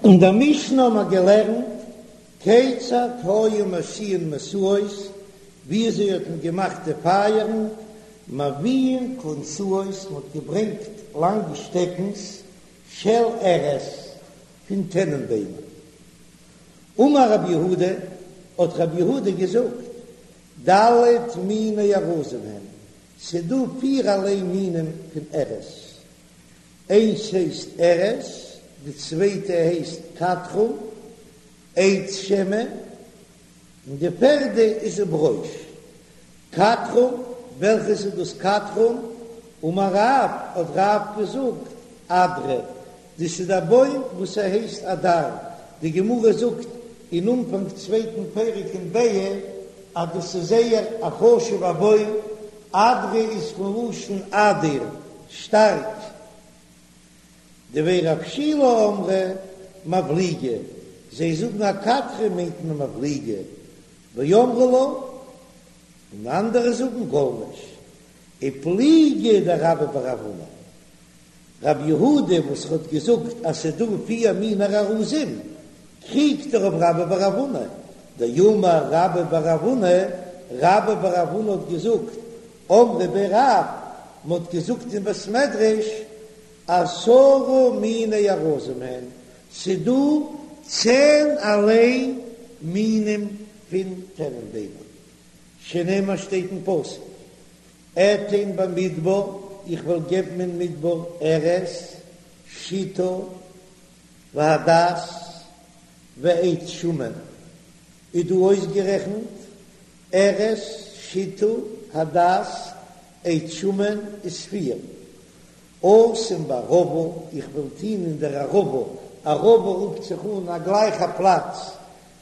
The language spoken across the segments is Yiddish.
אין דער משנה האבן מיר געלערנט כיצד היו משיאין משואות, וויאזוי האט מען געמאכט די פייערן, מביאין כלונסאות, מען האט געברענגט לאנגע שטעקנס של ארז, פון טענענביימער. אמר רב יהודה, האט רב יהודה געזאגט, ד' מיני ארזים הן, ס'דא פירערליי מינים פון ארז, איינס הייסט ארז, די צווייטע הייסט קטרום, עץ שמן, און די פערדע איז וברוש. קטרום, וועלכעס איז דאס קטרום? אמר רב, האט רב געזאגט, אדרא, דאס איז א בוים וואס ער הייסט אדר, די גמרא זאגט אין אנפאנג צווייטן פרק אין ביעא אז דאס איז זייער א חשוב'ע בוים, אדרא איז פון לשון אדיר, שטארק. דבי רב שילא אמרי מבליגא, זיי זאגן א קטרא מיינט מען מבליגא, ואמרי לה, און אנדערע זאגן גולמיש, ופליגא דרבה בר רב הונא. רב יהודה וואס האט געזאגט אז ס'איז דא פיר מיני ארזים, קריגט ער אויף רבה בר רב הונא, דאמר רבה בר רב הונא, רבה בר רב הונא האט געזאגט, אמרי בי רב, מ'האט געזאגט אין בית מדרש, עשרה מיני ארזים הן, ס'דא צענערליי מינים פון טענענביימער, שנאמר שטייט אין פסוק, אתן במדבר, איך וועל געבן אין מדבר ארז, שטה, והדס, ועץ שמן, איז דא אויסגערעכנט ארז, שטה, הדס, עץ שמן איז פיר. אשים בערבה, איך וועל טון אין דער ערבה, ערבה רופט זיך אן א גלייכע פלאץ,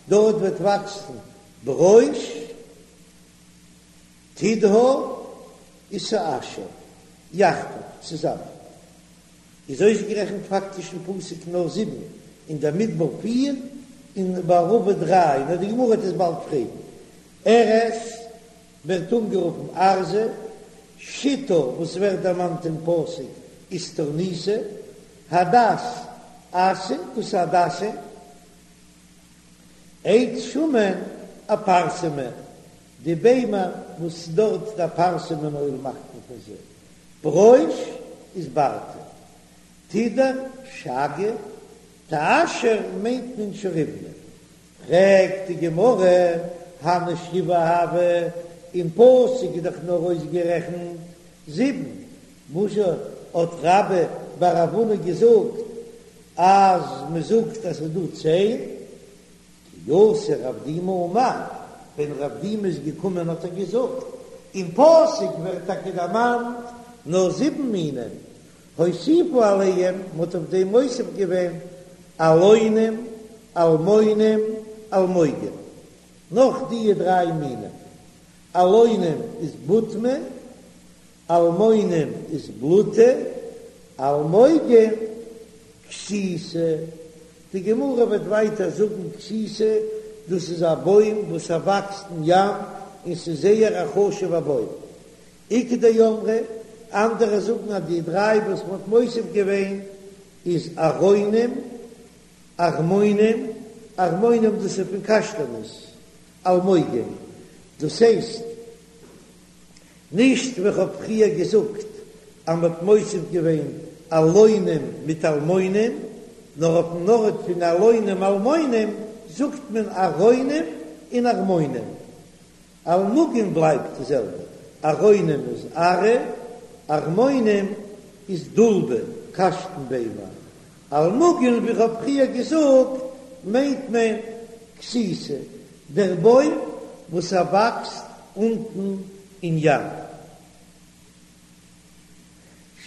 דארט וועט וואקסן ברוש, תדהר ותאשור יחדיו, צוזאמען איז אויסגערעכנט פאקטיש אין פסוק נאר זיבן, אין דער מדבר פיר, און בערבה דריי, נאר די גמרא וועט עס באלד פרעגן. ארז ווערט אנגערופן ארזא, שטה וואס ווערט דערמאנט אין פסוק איז תורניתא, הדס אסא, דאס איז הדסים, עץ שמן אפרסמא, די ביימער וואס דארט די אפרסמון אויל מאכט מען פון זיי, ברוש איז ברתא, תדהר שאגא, תאשור מיינט מען שוריבנא, פרעגט די גמרא, הני שבעה הוו, אין פסוק איז דאך נאר אויסגערעכנט זיבן, וואזשע האט רבה בר רב הונא געזאגט אז מען זאגט אז ס'איז דא צען? כי אתא רב דימי אמר, ווען רב דימי איז געקומען האט ער געזאגט, אין פסוק ווערט טאקע דערמאנט נאר זיבן מינים, הוסיפו עליהם, מען האט אויף דעם מוסיף געווען אלונים, אלמונים, אלמוגים, נאך דיע דריי מינים, אלונים איז בוטמי, אלמונים איז בלוטי, אלמוגים כסיתא, די גמרא וועט ווייטער זאגן כסיתא, דאס איז א בוים וואס ער וואקסט אין ים און ס'איז זייער א חשוב'ע בוים. איכא דאמרי, אנדערע זאגן אז די דריי וואס מ'האט מוסיף געווען איז ארונים, ערמונים, ערמונים דאס איז פון קאשטאנעס, אלמוגים, דאס הייסט נישט ווי כ'האב פריער געזאגט אז מ'האט מוסיף געווען אלונים מיט אלמונים, נאר אויפן ארט פון אלונים אלמונים זאגט מען ארונים און ערמונים. אלמוגים בלייבט די זעלבע, ארונים איז ארעא, ערמונים איז דולבא, קאשטן ביימער, אלמוגים ווי כ'האב פריער געזאגט מיינט מען כסיתא, דער בוים וואס ער וואקסט אונטן אין ים.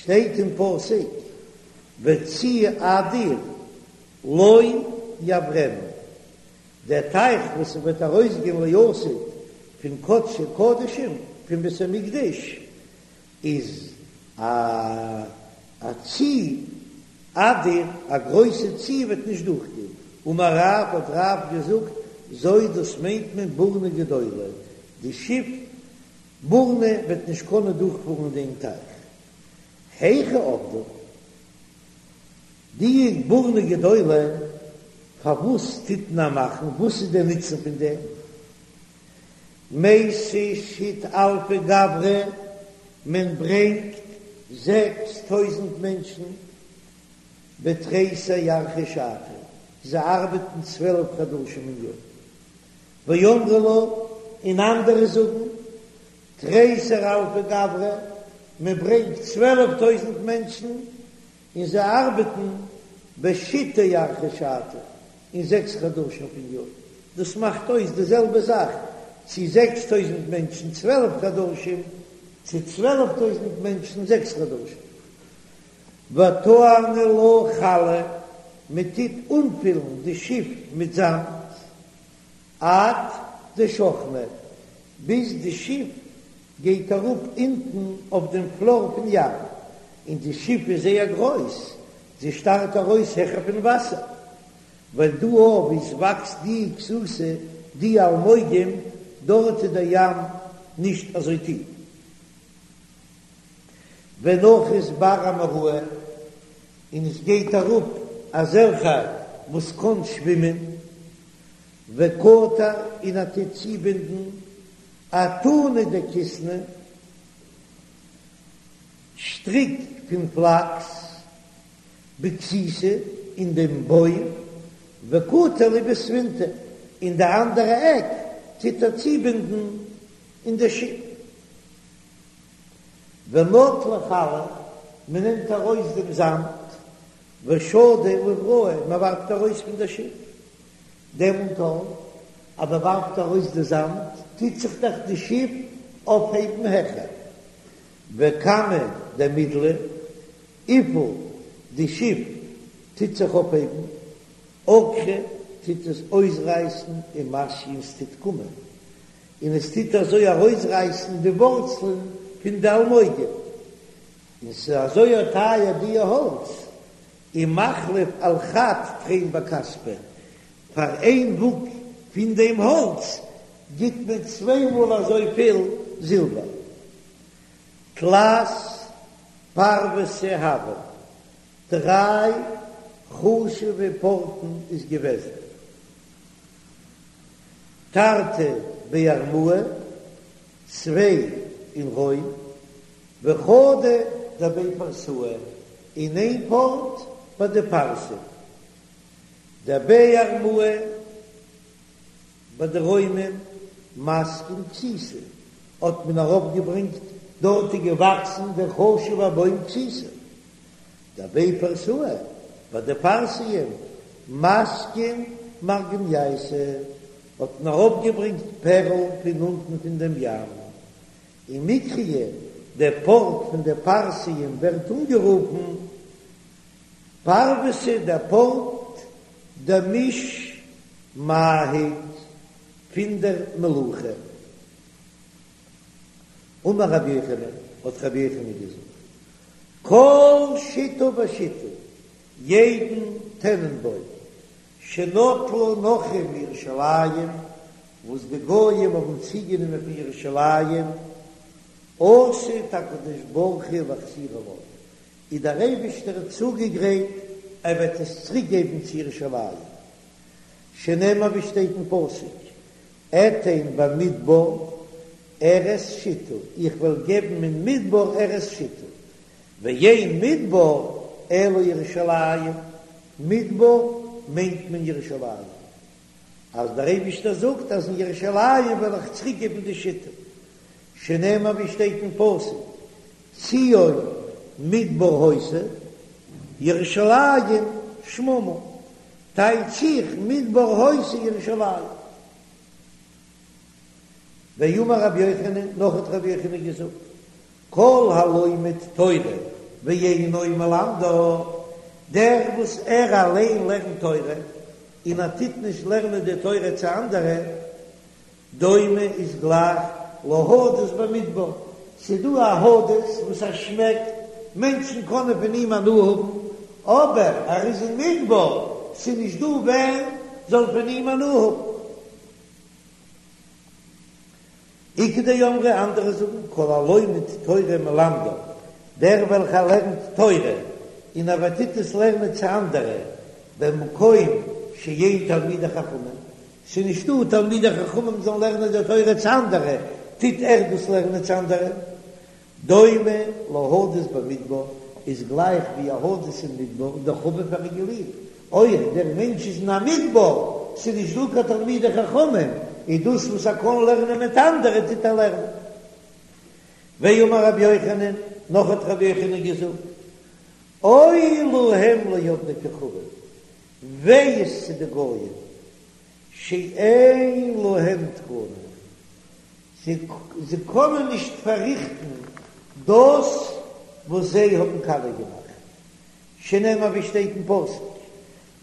שטייט אין פסוק וצי אדיר לא יעברנו, דער טייך וואס וועט ארויסגיין לעתיד פון קדשי קדשים פון בית המקדש איז א א צי אדיר, א גרויסע צי וועט נישט דורכגיין, אמר רב האט רב געזאגט, זו דאס מיינט מען בורנא גדולה, די שיף בורנא וועט נישט קענען דורכפארן אין דעם טייך, היכי עבדא, די בורנא גדולה. פארוואס טוט מען מאכן? וואס איז דער נוצן פון דעם? מייתי שית אלפי גברי, מען ברענגט 6000 מענטשן בתריסר ירחי שתא, זיי ארבעטן 12 חדשים אין יאר. ואמרי לה, און אנדערע זאגן, תריסר אלפי גברי, מען ברענגט 12 טויזנט מענטשן און זיי ארבעטן בשיתא ירחי שתא, אין זעקס חדשים פון יאר. דאס מאכט אויס די זעלבע זאך צו 6 טויזנט מענטשן 12 חדשים, צו 12 טויזנט מענטשן זעקס חדשים. וטעני לה חלא, מען טוט אנפילן די שיף מיט זאמד, עד דשכנא, ביז די שיף גייט אראפ אונטן אויף דעם פלאר פון ים, און די שיף איז זייער גרויס, זי שטארט ארויס העכער פון וואסער, ווייל דא אויף וואו עס וואקסט די כסוסה, די אלמוגים, דארט איז דער ים נישט אזוי טיף. ונחית בר אמוראי, און עס גייט אראפ אזעלכע וואס קען שווימען, וקטר און ער טוט צובינדן אתונא דכיתנא, שטריק פון פלאקס, בכסיתא אין דעם בוים, וקטר להו בספינתא, און די אנדערע עק טוט ער צובינדן אין די שיף. ונטלי חלא, מען נעמט ארויס דעם זאמד, ושדי לבראי, מען ווארפט ארויס פון דער שיף. דעמאלט אז מען ווארפט ארויס די זאמד, טוט זיך דאך די שיף אויפהייבן העכער. וכמה דמידלא, וויפיל די שיף טוט זיך אויפהייבן, עקרא טוט עס אויסרייסן ומתיא און ס'טוט קומען, און עס טוט אזוי ארויסרייסן די ווארצלען פון די אלמוגים, און ס'איז אזוי טייער די האלץ, ומחליף על חד תרין בכספא, פאר איין וואג פון דעם האלץ גיט מען צוויי מאל אזויפיל זילבער. תלת פרוותא הוון, דריי חשובע פארטן איז געוועזן. תרתי בי ארמאי, צוויי אין רוים, וחדא דבי פרסאי, און איין פארט ביי די פרסים. דבי ארמאי ביי די רוימען מסקין כסיתא האט מען ארויפגעברענגט דארט איז געוואקסן דער חשובער בוים כסיתא. דבי פרסאי ביי די פרסיים מסקין מרגנייתא האט מען ארויפגעברענגט פערל פון אונטן פון דעם ים. ומיקריי דער פארט פון די פרסיים ווערט אנגערופן פרוותא דער פארט דמיש מהיק פון דער מלוכה. אמר רבי יוחנן, האט רבי יוחנן געזאגט, כל שיטה ושיטה, יעדן טענענבוים, שנטלו נכרים מירושלים, וואס די גויים האבן צוגענומען פון ירושלים, עתיד הקדוש ברוך הוא להחזירה לה, איז דער אייבישטער צוגעגרייט ער וועט עס צוריק געבן צו ירושלים, שנאמר ווי שטייט אין פסוק, אתן במדבר ארץ שטה, איך וועל געבן אין מדבר ארץ שטה, ואין מדבר אלא ירושלים, מדבר מיינט מען ירושלים, אז דער אייבישטער זאגט אז אין ירושלים וועל איך צוריק געבן די שטה, שנאמר ווי שטייט אין פסוק, ציון מדבר היתה, ירושלים שממה, טייטש איך מדבר היתה ירושלים. ואמר רבי יוחנן, נאך האט רבי יוחנן געזאגט, כל הלומד תורה ואינו מלמדה, דער וואס ער אליין לערנט תורה און ער טוט נישט לערנען די תורה צו אנדערע, דומה איז גלייך להדס במדבר, ס'איז דא א הדס וואס ער שמעקט, מענטשן קענען פון אים הנאה האבן, אבער ער איז אין מדבר, ס'איז נישט דא ווער זאל פון אים הנאה האבן. איכא דאמרי, אנדערע זאגן, כל הלומד תורה ומלמדה, דער וועלכער לערנט תורה און ער טוט עס לערנען צו אנדערע, במקום. שאין תלמידי חכמים, ס'איז נישטא תלמידי חכמים זאלן לערנען די תורה צו אנדערע, טוט ער דאס לערנען צו אנדערע. דומה להדס במדבר, איז גלייך ווי א הדס אין מדבר, דחביב, ער איז געליבט, אויך דער מענטש איז אין א מדבר, ס'איז נישט דא קיין תלמידי חכמים, איז דאס וואס ער קען לערנען מיט אנדערע טוט ער לערנען. ואמר רבי יוחנן, נאך האט רבי יוחנן געזאגט, אוי להם לעובדי כוכבים, וויי איז צו די גויים, שאין להם תקנה, זיי קענען נישט פארריכטן דאס וואס זיי האבן קאליע געמאכט, שנאמר ווי שטייט אין פסוק,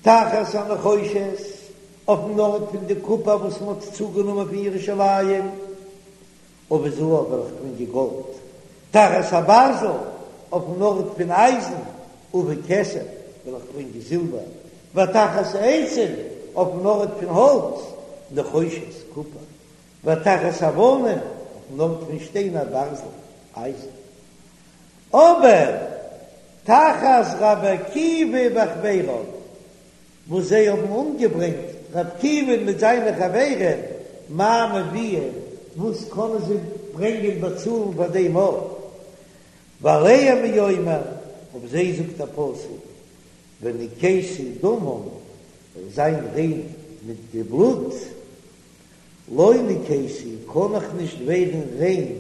תחת הנחושת, אויפן ארט פון די קופער וואס מען האט צוגענומען פון ירושלים, אביא זהב וועל איך ברענגען גאלד, תחת הברזל, אויפן ארט פון אייזן, אביא כסף, וועל איך ברענגען זילבער, ותחת העצים, אויפן ארט פון האלץ, נחושת, קופער, ותחת האבנים, אויפן ארט פון שטיינער, ברזל, אייזן. אבער תחת רבי עקיבא וחביריו, וואס זיי האבן אומגעברענגט רבי עקיבא'ן מיט זיינע חברים, מה מביאין, וואס קענען זיי ברענגען באצאלן פאר דעם אויף? ועליהם הוא אומר, אויף זיי זאגט א פסוק, ונקיתי דמם, וועל זיין ריין מיט די בלוט, לא נקיתי, קען איך נישט ווערן ריין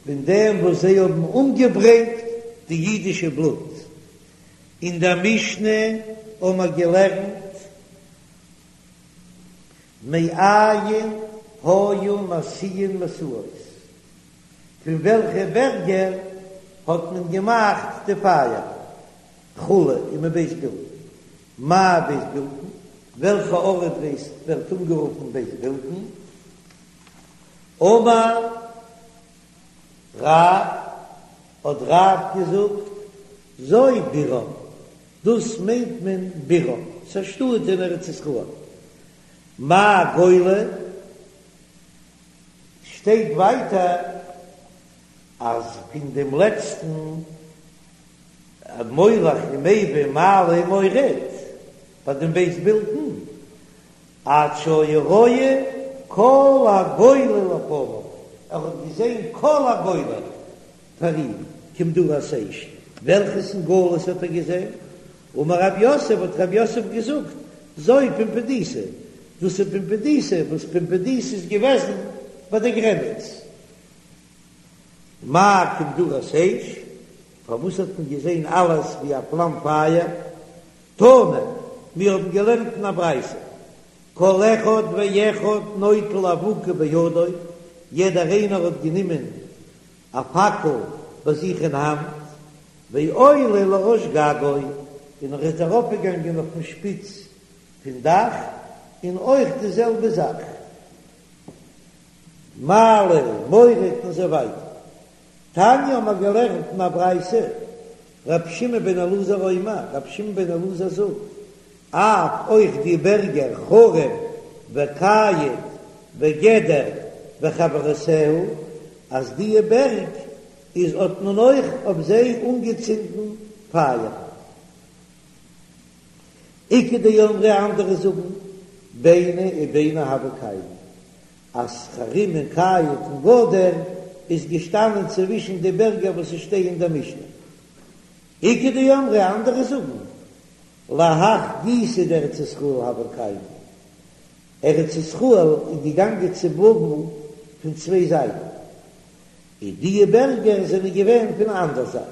פון דעם וואס זיי האבן אומגעברענגט די אידישע בלוט. אין דער משנה האבן מיר געלערנט מאין היו משיאין משואות, פון וועלכע בערגער האט מען געמאכט די פייער וכו' ומבית בלתין, מאי בית בלתין, וועלכע ארט ווערט אנגערופן בית בלתין, אמר רב, האט רב געזאגט, זו בירם, דאס מיינט מען בירם, ס'איז א שטאט אין ארץ ישראל. מאי גולה? שטייט ווייטער אז פון דעם לעצטן מולך ומביא מעלה ומוריד ביי דעם בית בלתין, עד שהיה רואה כל הגולה לפניו, ער האט געזען כל הגולה פאר אים, כמדורת אש, וועלכעס אין גלות האט ער געזען? אמר רב יוסף, האט רב יוסף געזאגט, זו פומבדיתא, דאס איז פומבדיתא, וואס פומבדיתא איז געוועזן ביי די גרעניץ. מאי כמדורת אש, פארוואס האט מען געזען אלעס ווי א פלאם פייער? תנא, מיר האבן געלערנט אין א ברייתא, כל אחד ואחד נוטל אבוקה בידו, יעדער איינער האט גענומען א פאקל ביי זיך אין האנט, ועולה לראש גגו, און ער איז ארויפגעגאנגען אויפן שפיץ פון דאך, און אויך די זעלבע זאך, מעלה מוריד און אזוי ווייטער. תניא האבן מיר געלערנט אין א ברייתא, רבי שמעון בן אלעזר אומר, רבי שמעון בן אלעזר זאגט, אף אויך די בערגער חרים וקיט וגדר וחברותיה, אז דיע בערג איז האט מען אויך אויף זיי אנגעצינדן פייער. איכא דאמרי אנדערע זאגן, ביני וביני הוו קיימי, אז חרים און קיט און גדר איז געשטאנען צווישן די בערגער וואס עס שטייען אין דער משנה. איכא דאמרי אנדערע זאגן, להך גיסא דארץ ישראל הוו קיימי, ארץ ישראל איז געגאנגען צו בבל פון צוויי זייטן, און דיע בערגער זענען געווען פון א אנדער זייט.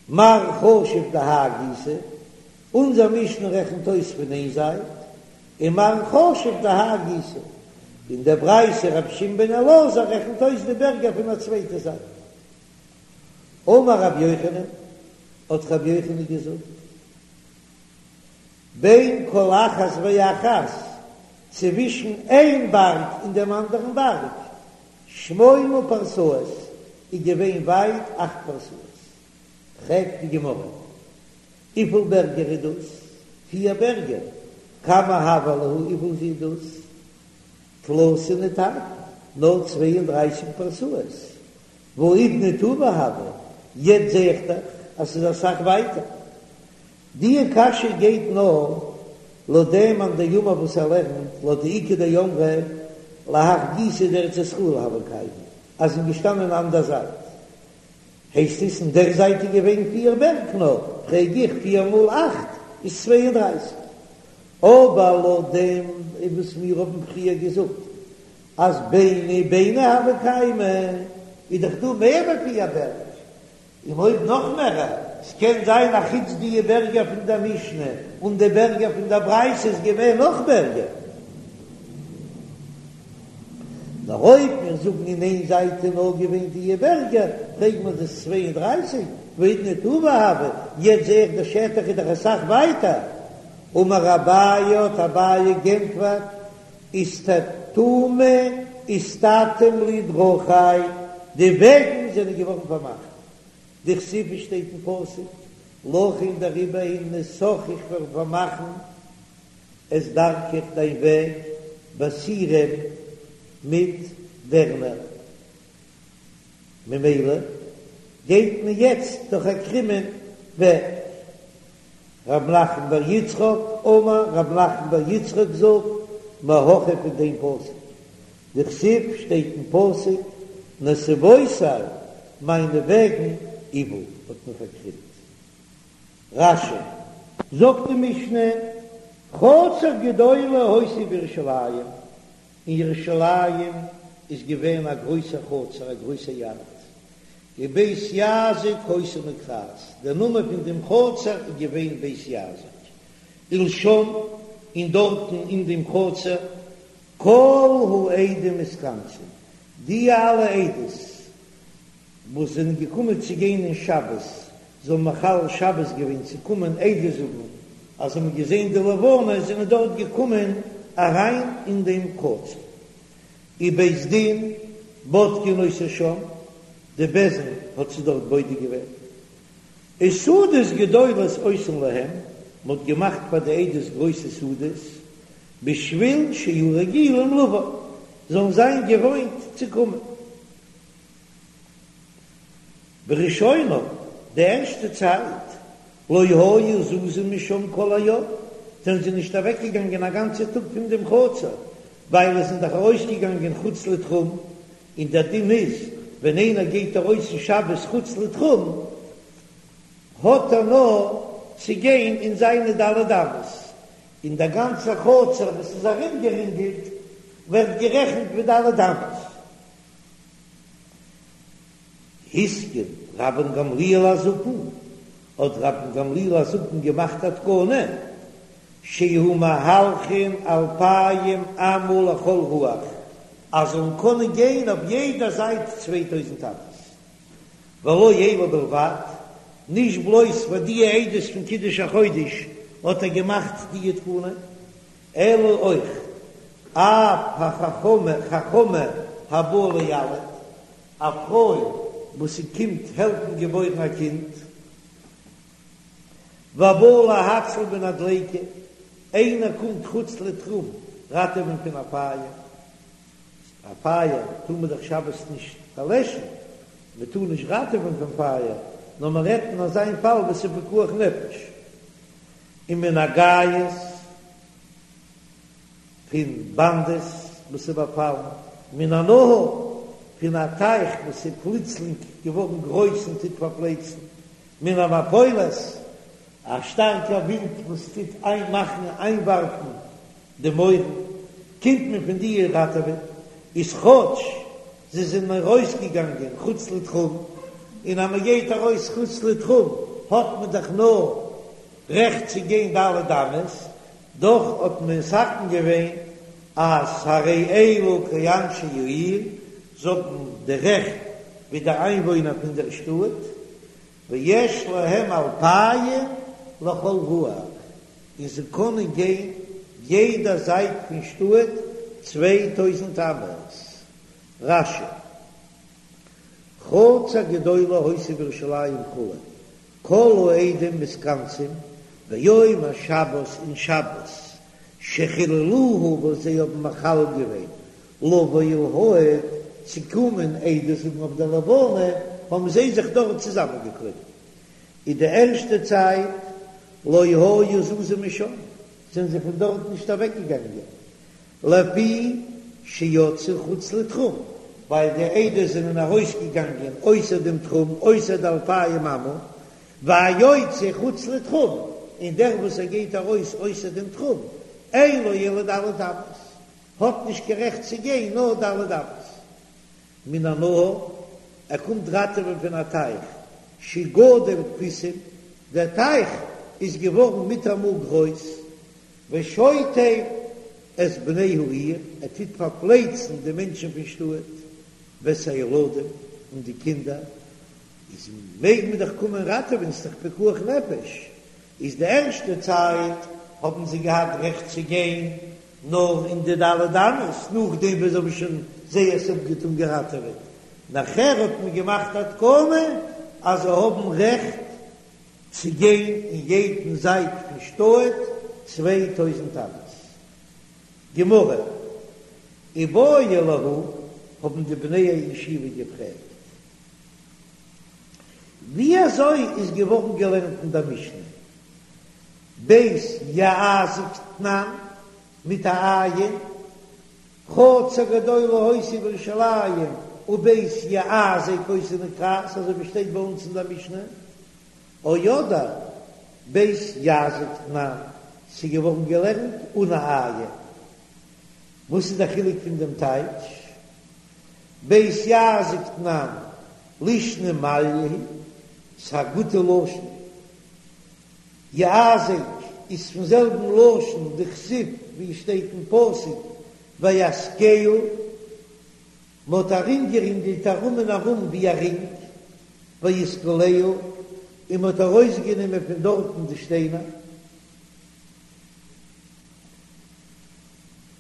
מר חשיב דהאי גיסא, אונזער משנה רעכנט אויס פון איין זייט, און מר חשיב דהאי גיסא, און דער ברייתא רבי שמעון בן אלעזר רעכנט אויס די בערגער פון א צווייטע זייט. אמר רבי יוחנן, האט רבי יוחנן געזאגט, בין כל אחת ואחת, צווישן איין בארג און דעם אנדערן בארג, שמונה פרסאות, איז געווען ווייט אכט פרסאות. פרעגט די גמרא, וויפיל בערגער איז דאס? פיר בערגער, כמה הוה להו, וויפיל איז דאס? תלתין ותרתין, נאר 32 פרסאות, והאידנא טובא הוו, יעצט זע איך דאך אז ס'איז אסאך ווייטער. די קשיא גייט נאר. לויט דעם מאן דאמר וואס ער לערנט, לויט די איכא דאמרי להך גיסא דארץ ישראל הוו קיימי, אז זענען געשטאנען אן דער זייט, הייסט עס אין דער זייט איז געווען פיר בערג נאר, פרעג איך, פיר מאל אכט איז 32. אבער לויט דעם וואס מיר האבן פריער געזאגט אז ביני ביני הוו קיימי, איז דאך דא מער ווי פיר בערג, און אויב נאך מערער, ס'קען זיין א חוץ דיע בערגער פון דער משנה און די בערגער פון דער ברייתא איז געווען נאך בערגער. נאר אויב מיר זאגן אין איין זייט איז נאר געווען דיע בערגער, פרעגט מען דאס 32, והאידנא טובא הוו, יעצט זעה איך דער שטח איז דאך אסאך ווייטער. אמר אביי האט אביי גענטפערט, איסתתומי איסתתום לי דרכי, די וועגן זענען געווארן פארמאכט, דכתיב שטייט אין פסוק, לכן דעריבער הנה סך איך וועל פארמאכן את דרכך דיין וועג בסירים מיט דערנער, ממילא גייט מען יעצט דורך א קרומען וועג. רב נחמן בר יצחק אמר, רב נחמן בר יצחק זאגט, מהכא פון דעם פסוק, דכתיב שטייט אין פסוק, נתיבותי מיינע וועגן עוה האט מען פארקרימט. רש"י. זאגט די משנה, חצר גדולה היתה בירושלים, אין ירושלים איז געווען א גרויסע חצר, א גרויסע יארד, ובית יעזק היתה נקראת, דער נאמען פון דעם חצר איז געווען בית יעזק, ולשם, און דארטן אין דעם חצר, כל העדים מתכנסין, די אלע עדות וואס זענען געקומען צו גיין אין שבת, זיי האבן מחלל שבת געווען צו קומען עדות זאגן אז זיי האבן געזען די לבנה, זענען דארט געקומען אריין אין דעם חצר. ובית דין בודקין אותו שם, די בית דין האט זיי דארט בודק געווען. וסעודות גדולות עושין להם, מען האט געמאכט פאר די עדות גרויסע סעודות, בשביל שיהיו רגילים לבוא, זאלן זיין געוואוינט צו קומען. בראשונה, די ערשטע צייט, לא היו זזין משם כל היום, זענען זיי נישט אוועקגעגאנגען א גאנצע טאג פון דעם חצר, ווייל עס זענען דאך ארויסגעגאנגען חוץ לתחום, און דער דין איז, ווען איינער גייט ארויס אין שבת חוץ לתחום, האט ער נאר צו גיין אין זיינע ד' אמות, און דער גאנצער חצר וואס איז ארומגערינגלט ווערט גערעכנט ווי ד' אמות. התקין רבן גמליאל הזקן, האט רבן גמליאל הזקן געמאכט א תקנה, שיהו מהלכין אלפיים אמה לכל רוח, אז זאלן קענען גיין אויף יעדע זייט 2000 אמות, ולא אלו בלבד, נישט בלויז פאר די עדות פון קידוש החודש האט ער געמאכט די תקנה, אלא אויך אף החכמה חכמה הבאה לילד, א פרוי וואס זי קומט העלפן געבוירן א קינד, והבא להציל מן הדליקה, איינער קומט חוץ לתחום ראטעווען פון א פייער, א פייער טאר מען דאך שבת נישט פארלעשן, מען טאר נישט ראטעווען פון פייער, נאר מען רעדט אין אזא פאל וואס איז פיקוח נפש. ומן הגייס פון באנדעס וואס איז באפאלן, מן הנהר פון א טייך וואס איז פלוצלינג געווארן גרויס און טוט פארפלייצן, מן המפולת א שטארקע ווינט וואס טוט איינמאכן איינווארפן די מויערן, קומט מען פון די ראטעווען, איז כאטש זיי זענען ארויסגעגאנגען חוץ לתחום, און אז מען גייט ארויס חוץ לתחום האט מען דאך נאר רעכט צו גיין ד' אמות, דאך האט מען מתקן געווען אז הרי אלו כאנשי העיר, זיי האבן די רעכט ווי די איינוואוינער פון דער שטאט, ויש להם אלפיים לכל רוח, און זיי קענען גיין יעדע זייט פון שטאט 2000 אמות. רש"י, חצר גדולה היתה בירושלים כו', כל העדים מתכנסים ביום השבת אין שבת שחיללוה וואס זיי האבן מחלל געווען לבוא ולהעיד צו קומען עדות זאגן אויף די לבנה האבן זיי זיך דארט צוזאמען געקליבן אין די ערשטע צייט לא היו זזין משם. זענען זיי פון דארט נישט אוועקגעגאנגען, לפי שיצאו חוץ לתחום, ווייל די עדות זענען ארויסגעגאנגען אויסער דעם תחום, אויסער די אלפיים אמה, והיוצא חוץ לתחום, און דער וואס ער גייט ארויס אויסער דעם תחום, אין לו אלא ד' אמות, האט נישט קיין רעכט צו גיין נאר ד' אמות. מן הנהר, ער קומט ראטעווען פון א טייך, שגדל פיסים, דער טייך איז געווארן מיטאמאל גרויס, ושוטף את בני העיר, ער טוט פארפלייצן די מענטשן פון שטאט, ואת הילדים, און די קינדער, איז מעג מען דאך קומען ראטעווען, ס'איז דאך פיקוח נפש, איז די ערשטע צייט האבן זיי געהאט רעכט צו גיין נאר אין די ד' אמות, נאכדעם וואס זיי האבן שוין זייערס אפגעטון געראטעוועט, נאכער האט מען געמאכט א תקנה אז זיי האבן רעכט צו גיין אין יעדן זייט פון שטאט 2000 אמות. גמרא, איבעיא להו, האבן די בני הישיבה געפרעגט, ווי אזוי איז געווארן געלערנט אין דער משנה בית יעזק תנן מיט א עין, חצר גדולה היתה בירושלים ובית יעזק היתה נקראת, אזוי ווי שטייט ביי אונז אין דער משנה, או אדער בית יזק תנן, ס'איז געווארן געלערנט אן א עין. וואס איז דער חילוק פון דעם טייטש? בית יעזק תנן לישנא מעליא היא, ס'איז א גוטע לשון. יעזק איז פון זעלבן לשון דכתיב ווי עס שטייט אין פסוק ויאזקהו, מ'האט ארומגערינגלט ארום און ארום ווי א רינג, ויסקלהו, און מ'האט ארויסגענומען פון דארטן די שטיינער.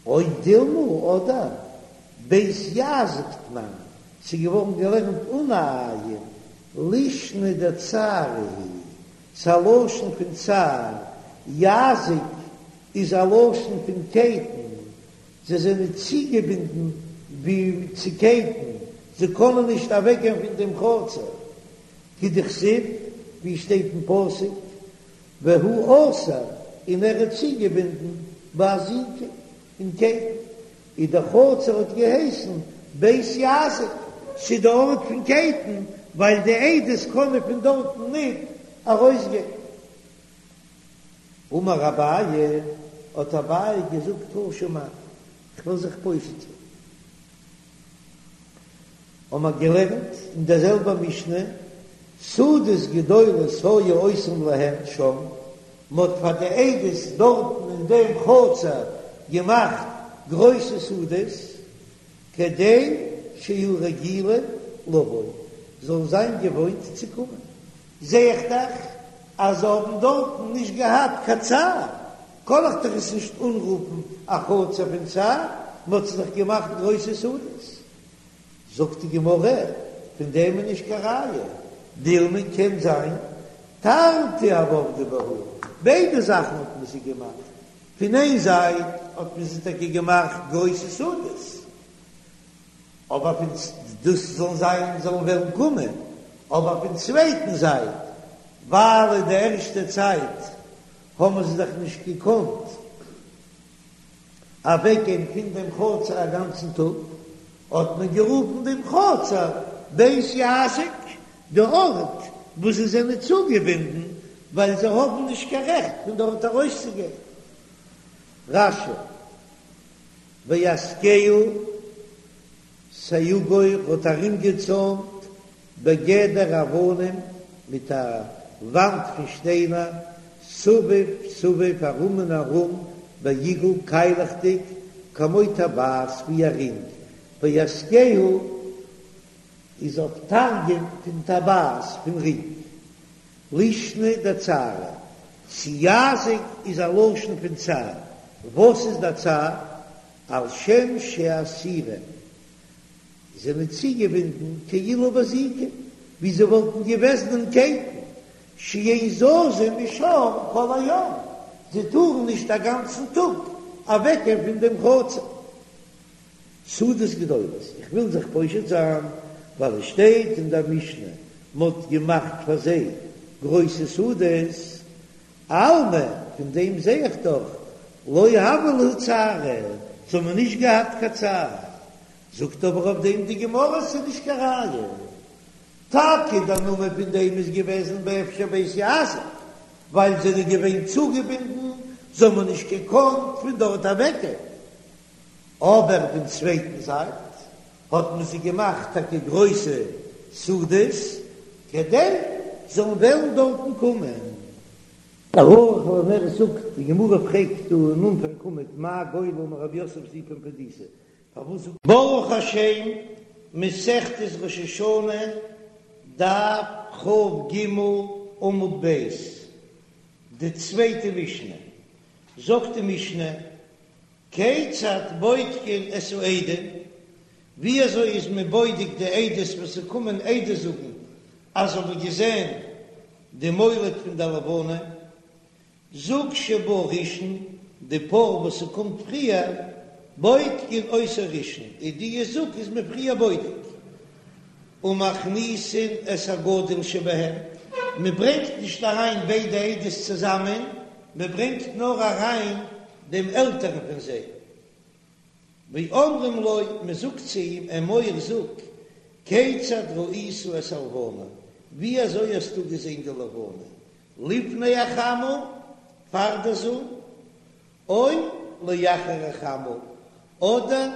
או דילמא אדער בית יזק תנן, ס'איז געווארן געלערנט אן א עין, לישנא דצערא היא, ס'איז א לשון פון צער, יזק איז א לשון פון קייטן, זיי זענען צוגעבינדן ווי צו קייטן, זיי קענען נישט אוועקגיין פון דעם חצר, כדכתיב, ווי שטייט אין פסוק, והוא אסור, און ער איז צוגעבינדן באזיקים אין קייטן, און דער חצר האט געהייסן בית יזק, ס'איז די ארט פון קייטן, ווייל די עדות קענען פון דארטן ניט ארויסגיין. אמר אביי, האט אביי געזאגט תא שמע, כ'וועל זיך פושט זיין. האבן מיר געלערנט אין דער זעלבער משנה, סעודות גדולות היו עושים להם שם, מען האט פאר די עדות דארטן אין דעם חצר געמאכט גרויסע סעודות, כדי שיהיו רגילים לבוא, זאלן זיין געוואוינט צו קומען. זע איך דאך אז זיי האבן דארטן נישט געהאט קיין צער, קען איך דאך עס נישט אנרופן א חצר פון צער, מען האט זיך דאך געמאכט גרויסע סעודות. זאגט די גמרא, פון דעם איז נישט קיין ראיה, דילמא קען זיין תרתי הוו עבדי בהו, ביידע זאכן האט מען זיי געמאכט, פון איין זייט האט מען זיי טאקע געמאכט גרויסע סעודות, אבער פון דאס זאלן זיין זאלן וועלן קומען, אבער פון צווייטן זייט ווייל אין די ערשטע צייט האבן זיי דאך נישט געקאנט אוועקגיין פון דעם חצר א גאנצן טאג, האט מען גערופן דעם חצר בית יזק, די ארט וואו זיי זענען צוגעבינדן, ווייל זיי האבן נישט קיין רעכט פון דארט ארויסצוגיין. רש"י, ויאזקהו סייגו האט ארומגעצוימט בגדר אבנים מיט א וואנט פון שטיינער, סביב סביב ארום און ארום, בעיגול קיילעכדיג, כמו טבעת ווי א רינג, ויאזקהו איז אויף תרגום פון טבעת פון רינג, לישנא דצערא, צו יזק איז א לשון פון צער, וואס איז דער צער? על שם שאסורים זענען צוגעבינדן כאילו באזיקים, ווי זיי וואלטן געוועזן אין קייטן, שאין זזין משם כל היום, זיי טארן נישט א גאנצן טאג אוועקגיין פון דעם חצר. סעודות גדולות, איך וויל זיך פושט זיין, ווייל עס שטייט אין דער משנה, מען האט געמאכט פאר זיי גרויסע סעודות, אלמא, פון דעם זע איך דאך. לא הוה להו צערא, זיי האבן נישט געהאט קיין צער. זאגט אבער אויף דעם די גמרא ס'איז נישט קיין ראיה. טאקע דער נאמען פון דעם איז געוועזן באפשר בית יעזב, ווייל זיי זענען געווען צוגעבינדן, זיי האבן נישט געקאנט פון דארט אוועקגיין. אבער פון צווייטן זייט האט מען זיי געמאכט טאקע גרויסע סעודות כדי זאלן וועלן דארטן קומען. ערוך לנר זאגט, די גמרא פרעגט דא אין אנפאנג עמוד מאי גולל אמר רב יוסף זיפא פומבדיתא, פארוואס זאגט. ברוך השם, מסכת ראש השנה, דף כ"ג עמוד ב', די צווייטע משנה, זאגט די משנה, כיצד בודקין את העדים, ווי אזוי איז מען בודק די עדות וואס ס'קומען עדות זאגן אז זיי האבן געזען די מולד פון די לבנה, זוג שבא ראשון, די פאר וואס ס'קומט פריער, בודקין אותו ראשון, און די זוג איז מען פריער בודק, ומכניסין את הגדול שבהם, מען ברענגט נישט אריין ביידע עדות צוזאמען, מען ברענגט נאר אריין דעם עלטערן פון זיי, ואומרים לו, מען זאגט צו אים, אמור זאג, כיצד ראית את הלבנה, ווי אזוי האסטו געזען די לבנה, לפני החמה, פאר דער זון, או לאחר החמה, אדער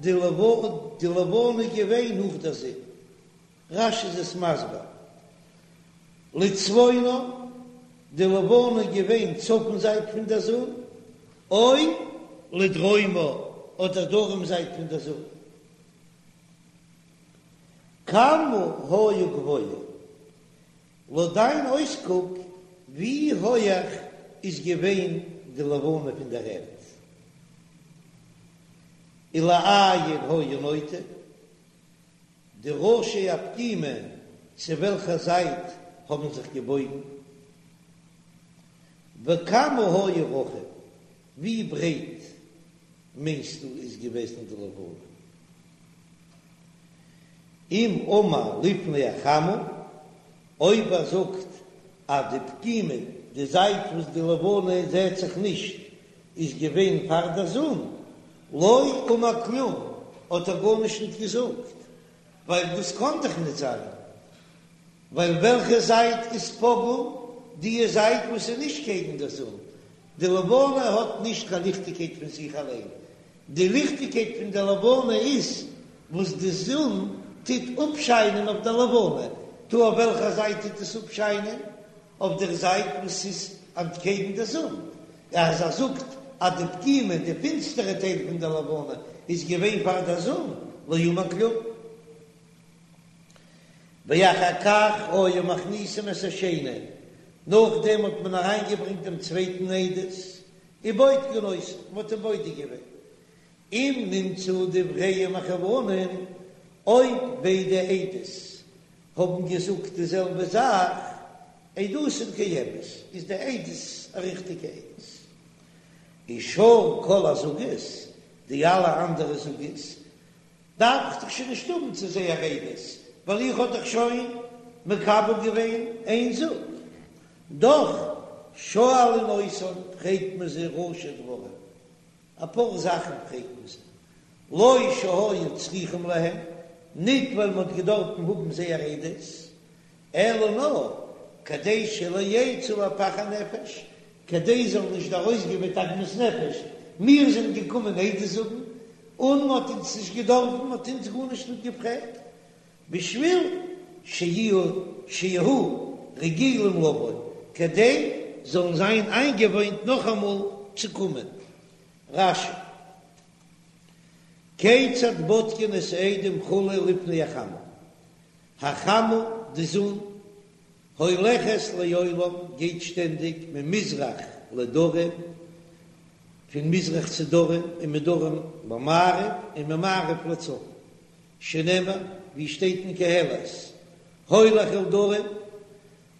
די לבנה איז געווען נאך דער זון. רש"י איז עס מסביר, לצפונה, די לבנה איז געווען צפון זייט פון דער זון, או לדרומה, אדער דרום זייט פון דער זון. כמה היה גבוה, לויט דיין אויסקוק, ווי הויעך איז געווען די לבנה פון דער ערד? ולאין היה נוטה, די ראשי הפגימה צו וועלכע זייט האבן זיך געבויגן? וכמה היה רחב, ווי ברייט מיינסטו איז געוועזן די לבנה? אם אמר לפני החמה, אויב ער זאגט אז די פגימה, די זייט וואס די לבנה זעהט זיך נישט, איז געווען פאר דער זון, לא אמר כלום, האט ער גארנישט ניט געזאגט, ווייל דאס קאן דאך ניט זיין, ווייל וועלכע זייט איז פגום? די זייט וואס איז נישט קעגן דער זון, די לבנה האט נישט קיין ליכטיגקייט פון זיך אליין, די ליכטיגקייט פון די לבנה איז וואס די זון טוט אפשיינען אויף דער לבנה, טא אויף וועלכע זייט טוט עס אפשיינען? אויף דער זייט וואס איז אנטקעגן דער זון. אז ער זאגט אז די פגימה, די פינסטערע טייל פון דער לבנה, איז געווען פאר דער זון, לא אמר כלום. ואחר כך היו מכניסין את השני, נאכדעם האט מען אריינגעברענגט דעם צווייטן עדות, ובודקין אותו, מען האט אים בודק געווען, אם נמצאו דבריהם מכוונין, אויב ביידע עדות האבן געזאגט די זעלבע זאך, עדותן קיימת, איז די עדות א ריכטיגע עדות. ושאר כל הזוגות, די אלע אנדערע זוגות, דארף איך דאך שוין נישט האבן צו זייער עדות, ווייל איך האב דאך שוין מקבל געווען איין זוג. דאך שואלין אותן, פרעגט מען זיי ראשי דברים, אפאר זאכן פרעגט מען זיי, לא שהיו צריכים להם, ניט ווייל מען האט געדארפן האבן זייער עדות, אלא נאר כדי שלא יצאו לפח הנפש, כדי זיי זאלן נישט ארויסגיין מיט עגמת נפש, מיר זענען געקומען עדות זאגן, און מען האט אונז נישט געדארפן, מען האט אונז גארנישט ניט געפרעגט, בשביל שיהיו שיהו רגילים לבוא, כדי זאלן זיין איינגעוואוינט נאכאמאל צו קומען. רש"י, כיצד בודקין את העדים כו' לפני החמה? החמה, די זון, הולכת לעולם, גייט שטענדיג ממזרח לדרום, פון מזרח צו דרום, ומדרום למערב, און ממערב לצפון, שנאמר, ווי שטייט אין קהלת, הולך אל דרום,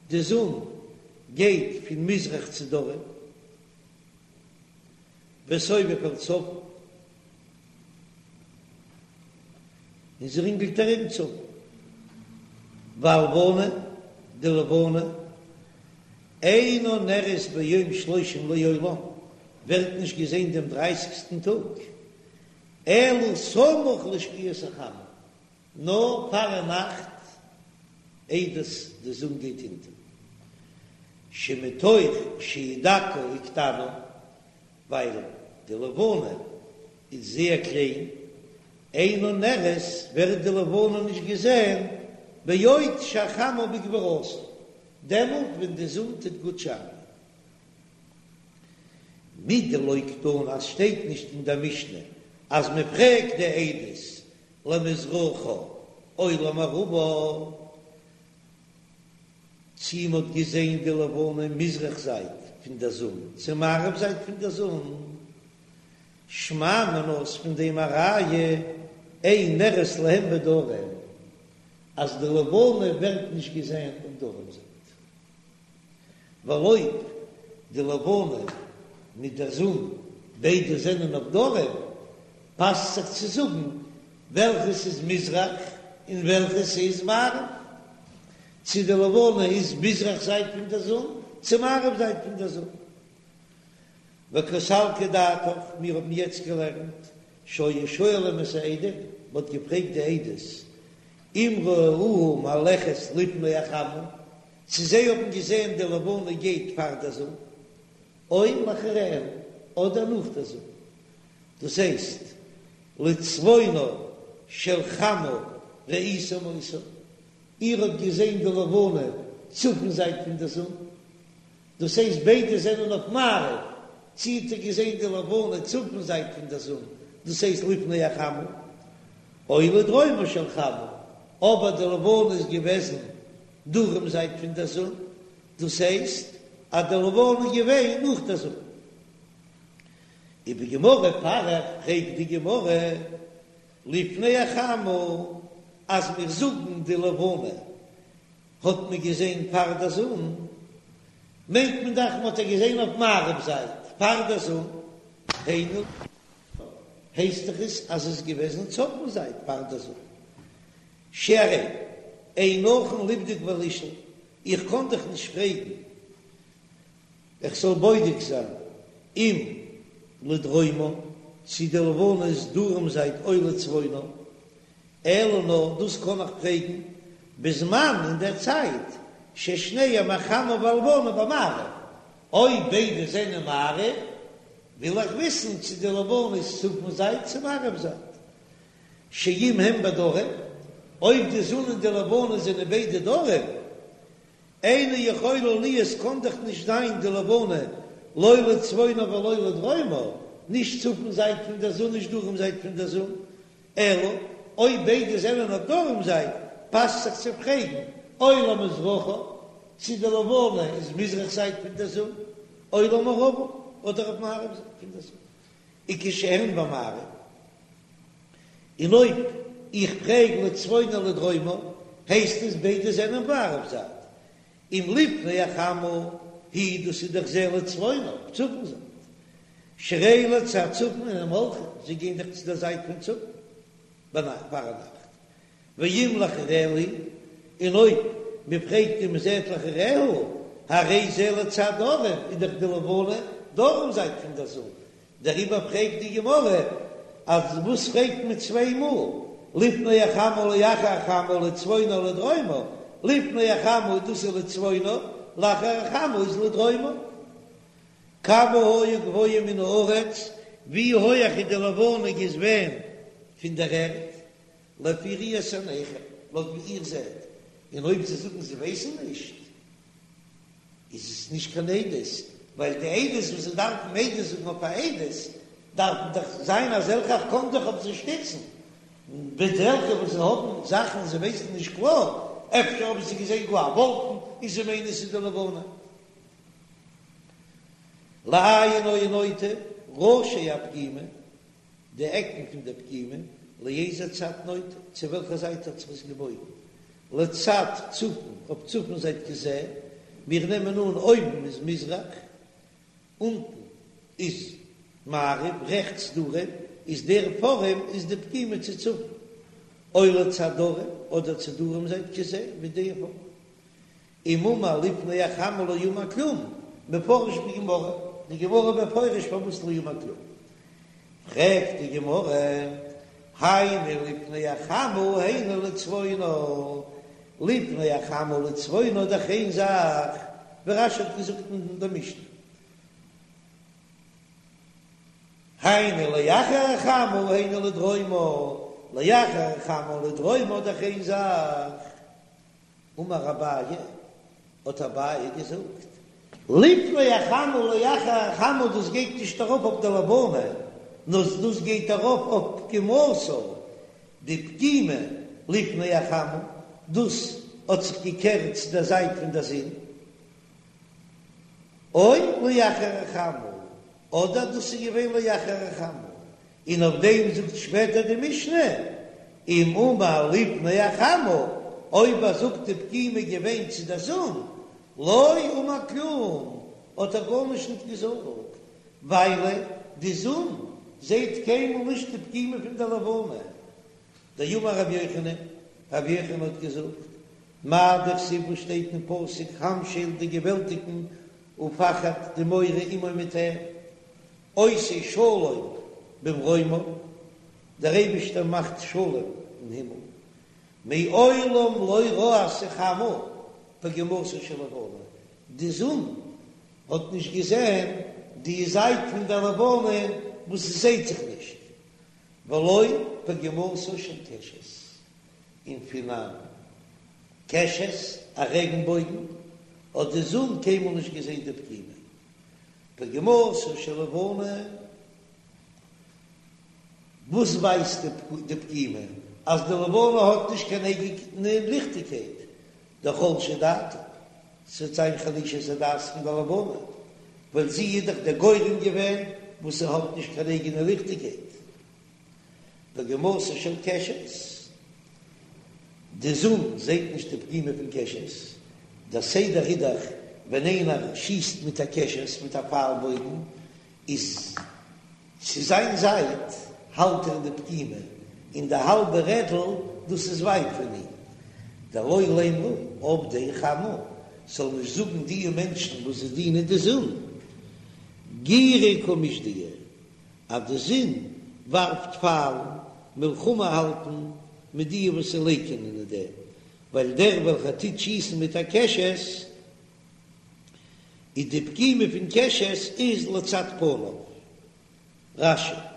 די זון גייט פון מזרח צו דרום, וסובב אל צפון, און זי רינגלט ארום צפון, והלבנה, די לבנה, אינה נראית ביום שלושים לעולם. ווערט נישט געזען דעם דרייסיגסטן טאג, אלא סמוך לשקיעת החמה, נאר פארנאכט איידער די זון גייט אונטער, שמתוך שהיא דקה וקטנה, ווייל די לבנה איז זייער קליין, אינה נראית ווערט די לבנה נישט געזען בעוד שהחמה בגבורתה, דעמאלט ווען די זון טוט גוט שיינען. מדלא קתני אז שטייט נישט אין דער משנה אז מען פרעגט די עדות למזרחה או למערבה, צי מען האט געזען די לבנה מזרח זייט פון דער זון צו מערב זייט פון דער זון, שמע מינה איז פון דעם א ראיה אין נראית להם בדרום אז די לבנה ווערט נישט געזען אויף דרום זייט. ווייל אויב די לבנה מיט דער זון ביידע זענען אויף דרום, פאסט זיך צו זאגן וועלכעס איז מזרח און וועלכעס איז מערב, צו די לבנה איז מזרח זייט פון דער זון צו מערב זייט פון דער זון. וקא סלקא דעתך, מיר האבן יעצט געלערנט שהיו שואלים את העדים, מען האט געפרעגט די עדות אם ראוה מהלכת לפני החמה, צו זיי האבן געזען די לבנה גייט פאר דער זון, או לאחריה, אדער נאך דער זון. דאס הייסט, לצפונה של חמה ראיתם אותה, איר האט געזען די לבנה צפון זייט פון דער זון, דאס הייסט ביידע זענען אויף מערב, צי האט איר געזען די לבנה צפון זייט פון דער זון, דאס הייסט לפני החמה, או לדרומה של חמה, אבער די לבנה איז געוועזן דרום זייט פון דער זון, דאס הייסט אז די לבנה איז געווען נאך דער זון. ובגמרא פריך, פרעגט די גמרא, לפני החמה, אז מיר זאגן די לבנה האט מען געזען פאר דער זון, מיינט מען דאך מ'האט איר געזען אויף מערב זייט פאר דער זון, היינו, הייסט דאך עס אז עס איז געוועזן צפון זייט פאר דער זון. שהרי אין נכון לבדוק ולשאול, איך קען דיך נישט פרעגן איך זאל בודק זיין אם לדרומה, צי די לבנה איז דרום זייט או לצפונה, אלא נאר דאס קען איך פרעגן בזמן אין דער צייט ששניהם החמה והלבנה במערב, אויב ביידע זענען מערב וויל איך וויסן צי די לבנה איז צפון זייט צו מערב זייט. שאם הם בדרום, אויב די זון און די לבנה זענען ביידע דרום, אינה יכולה להיות קאן דאך נישט זיין די לבנה לא לצפונה ולא לדרומה, נישט צפון זייט פון דער זון נישט דרום זייט פון דער זון, אלא אויב ביידע זענען אויף דרום זייט, פאסט זיך צו פרעגן, או למזרחה, צו די לבנה איז מזרח זייט פון דער זון, או למערבה, אדער אויף מערב זייט פון דער זון. וכשהן במערב, און אויב איך פרעג לצפונה לדרומה, הייסט עס ביידע זענען מערב זייט, אם לפני החמה היא דאס איז דאך זה לצפונה, צפון זייט, שהרי לצד צפון הם הולכים, זיי גייען דאך צו דער זייט פון צפון ביינאכט פארנאכט, ואם לאחריה היא, און אויב מען פרעגט און מען זעט לאחריה, הרי זה לצד דרום, איז דאך די לבנה דרום זייט פון דער זון, דעריבער פרעגט די גמרא אז וואס פרעגט מען צוויי מאל, לפני החמה לאחר החמה לצפונה לדרומה, לפני החמה דאס איז לצפונה, לאחר החמה איז לדרומה. כמה היה גבוה מן הארץ, ווי הויעך איז די לבנה געווען פון דער ערד? לפי ראיית עיניכם, לויט ווי איר זעט, און אויב זיי זאגן זיי ווייסן נישט, איז עס נישט קיין עדות, ווייל די עדות וואס זיי דארפן עדות זאגן אויף א עדות, דארפן דאך זיין אזעלכע איך קען זיך אויף זיי שטיצן, בעת אזעלכע וואס זיי האבן זאכן זיי ווייסן נישט קלאר, אפשר האבן זיי געזען גאר א וואלקן און זיי מיינען עס איז די לבנה. לאין היה נוטה ראשי הפגימה. די עקן פון דער פגימה, לאיזה צד נוטה, צו וועלכע זייט האט זיך עס געבויגן, לצד צפון, אויף צפון זייט כזה, מיר נעמען אן אויבן איז מזרח, אונטן איז מערב, רעכטס דרום, איז דער פארעם איז די פגימה צו צפון, או לצד דרום, אדער צו דרום זייט כזה, ווי דער פארעם. אם אמר לפני החמה לא אמר כלום, מפרש בגמרא. די גמרא מפרש פארוואס לא אמר כלום. פרעגט די גמרא, היינו לפני החמה היינו לצפונה, לפני החמה לצפונה דאך איין זאך, ווי רש"י האט געזאגט אין די משנה, היינו לאחר החמה היינו לדרומה, לאחר החמה לדרומה דאך איין זאך. אמר אביי, האט אביי געזאגט, לפני החמה לאחר החמה דאס גייט נישט ארויף אויף די לבנה, נאר דאס גייט ארויף אויף פגימתה, די פגימה לפני החמה, דאס האט זיך געקערט צו דער זייט פון דער זון, או לאחר החמה, אדער דאס איז געווען לאחר החמה, און אויף דעם זאגט שפעטער די משנה, אם אמר לפני החמה, אויב ער זאגט די פגימה געווען צו דער זון, לא אמר כלום, האט ער גארנישט ניט געזאגט, ווייל די זון זעט קיינמאל נישט די פגימה פון דער לבנה. דאמר רבי יוחנן, רבי יוחנן האט געזאגט, מאי דכתיב וואס שטייט אין פסוק המשל די געוועלטיגן ופחד די מורא עמו מיט אים, עושה שלום במרומיו, דער אייבישטער מאכט שלום אין הימל, מעולם לא ראתה חמה פגימתה של לבנה, די זון האט נישט געזען די זייט פון דער לבנה וואס עס זעט זיך נישט, ולא פגימתה של קשת, און פון א קשת, א רעגנבויגן, האט די זון קיינמאל נישט געזען די פגימה. פגימתה של לבנה, וואס ווייזט די פגימה? אז די לבנה האט נישט קיין אייגענע ליכטיגקייט, דחלשה דעתה, ס'וועט זיין חלישת הדעת פון די לבנה, ווייל זי איז דאך דער גורם געווען וואס זי האט נישט קיין אייגענע ליכטיגקייט. פגימתה של קשת, די זון זעט נישט די פגימה פון קשת, דער סדר איז דאך ווען איינער שיסט מיט א קשת מיט א פייל בויגן איז צו זיין זייט האלט ער די פגימה און די האלבע רעדל דאס איז ווייט פון אים, דלא לימרו עובדי חמה זאל נישט זאגן די מענטשן וואס זיי דינען די זון גירי קא משדיא אז די זון ווארפט פיילן, מלחמה האלטן מיט די וואס לייקענען אין דעם, ווייל דער וועלכער טוט שיסן מיט א קשת, איז די פגימה פון קשת איז לצד פניו. רש"י.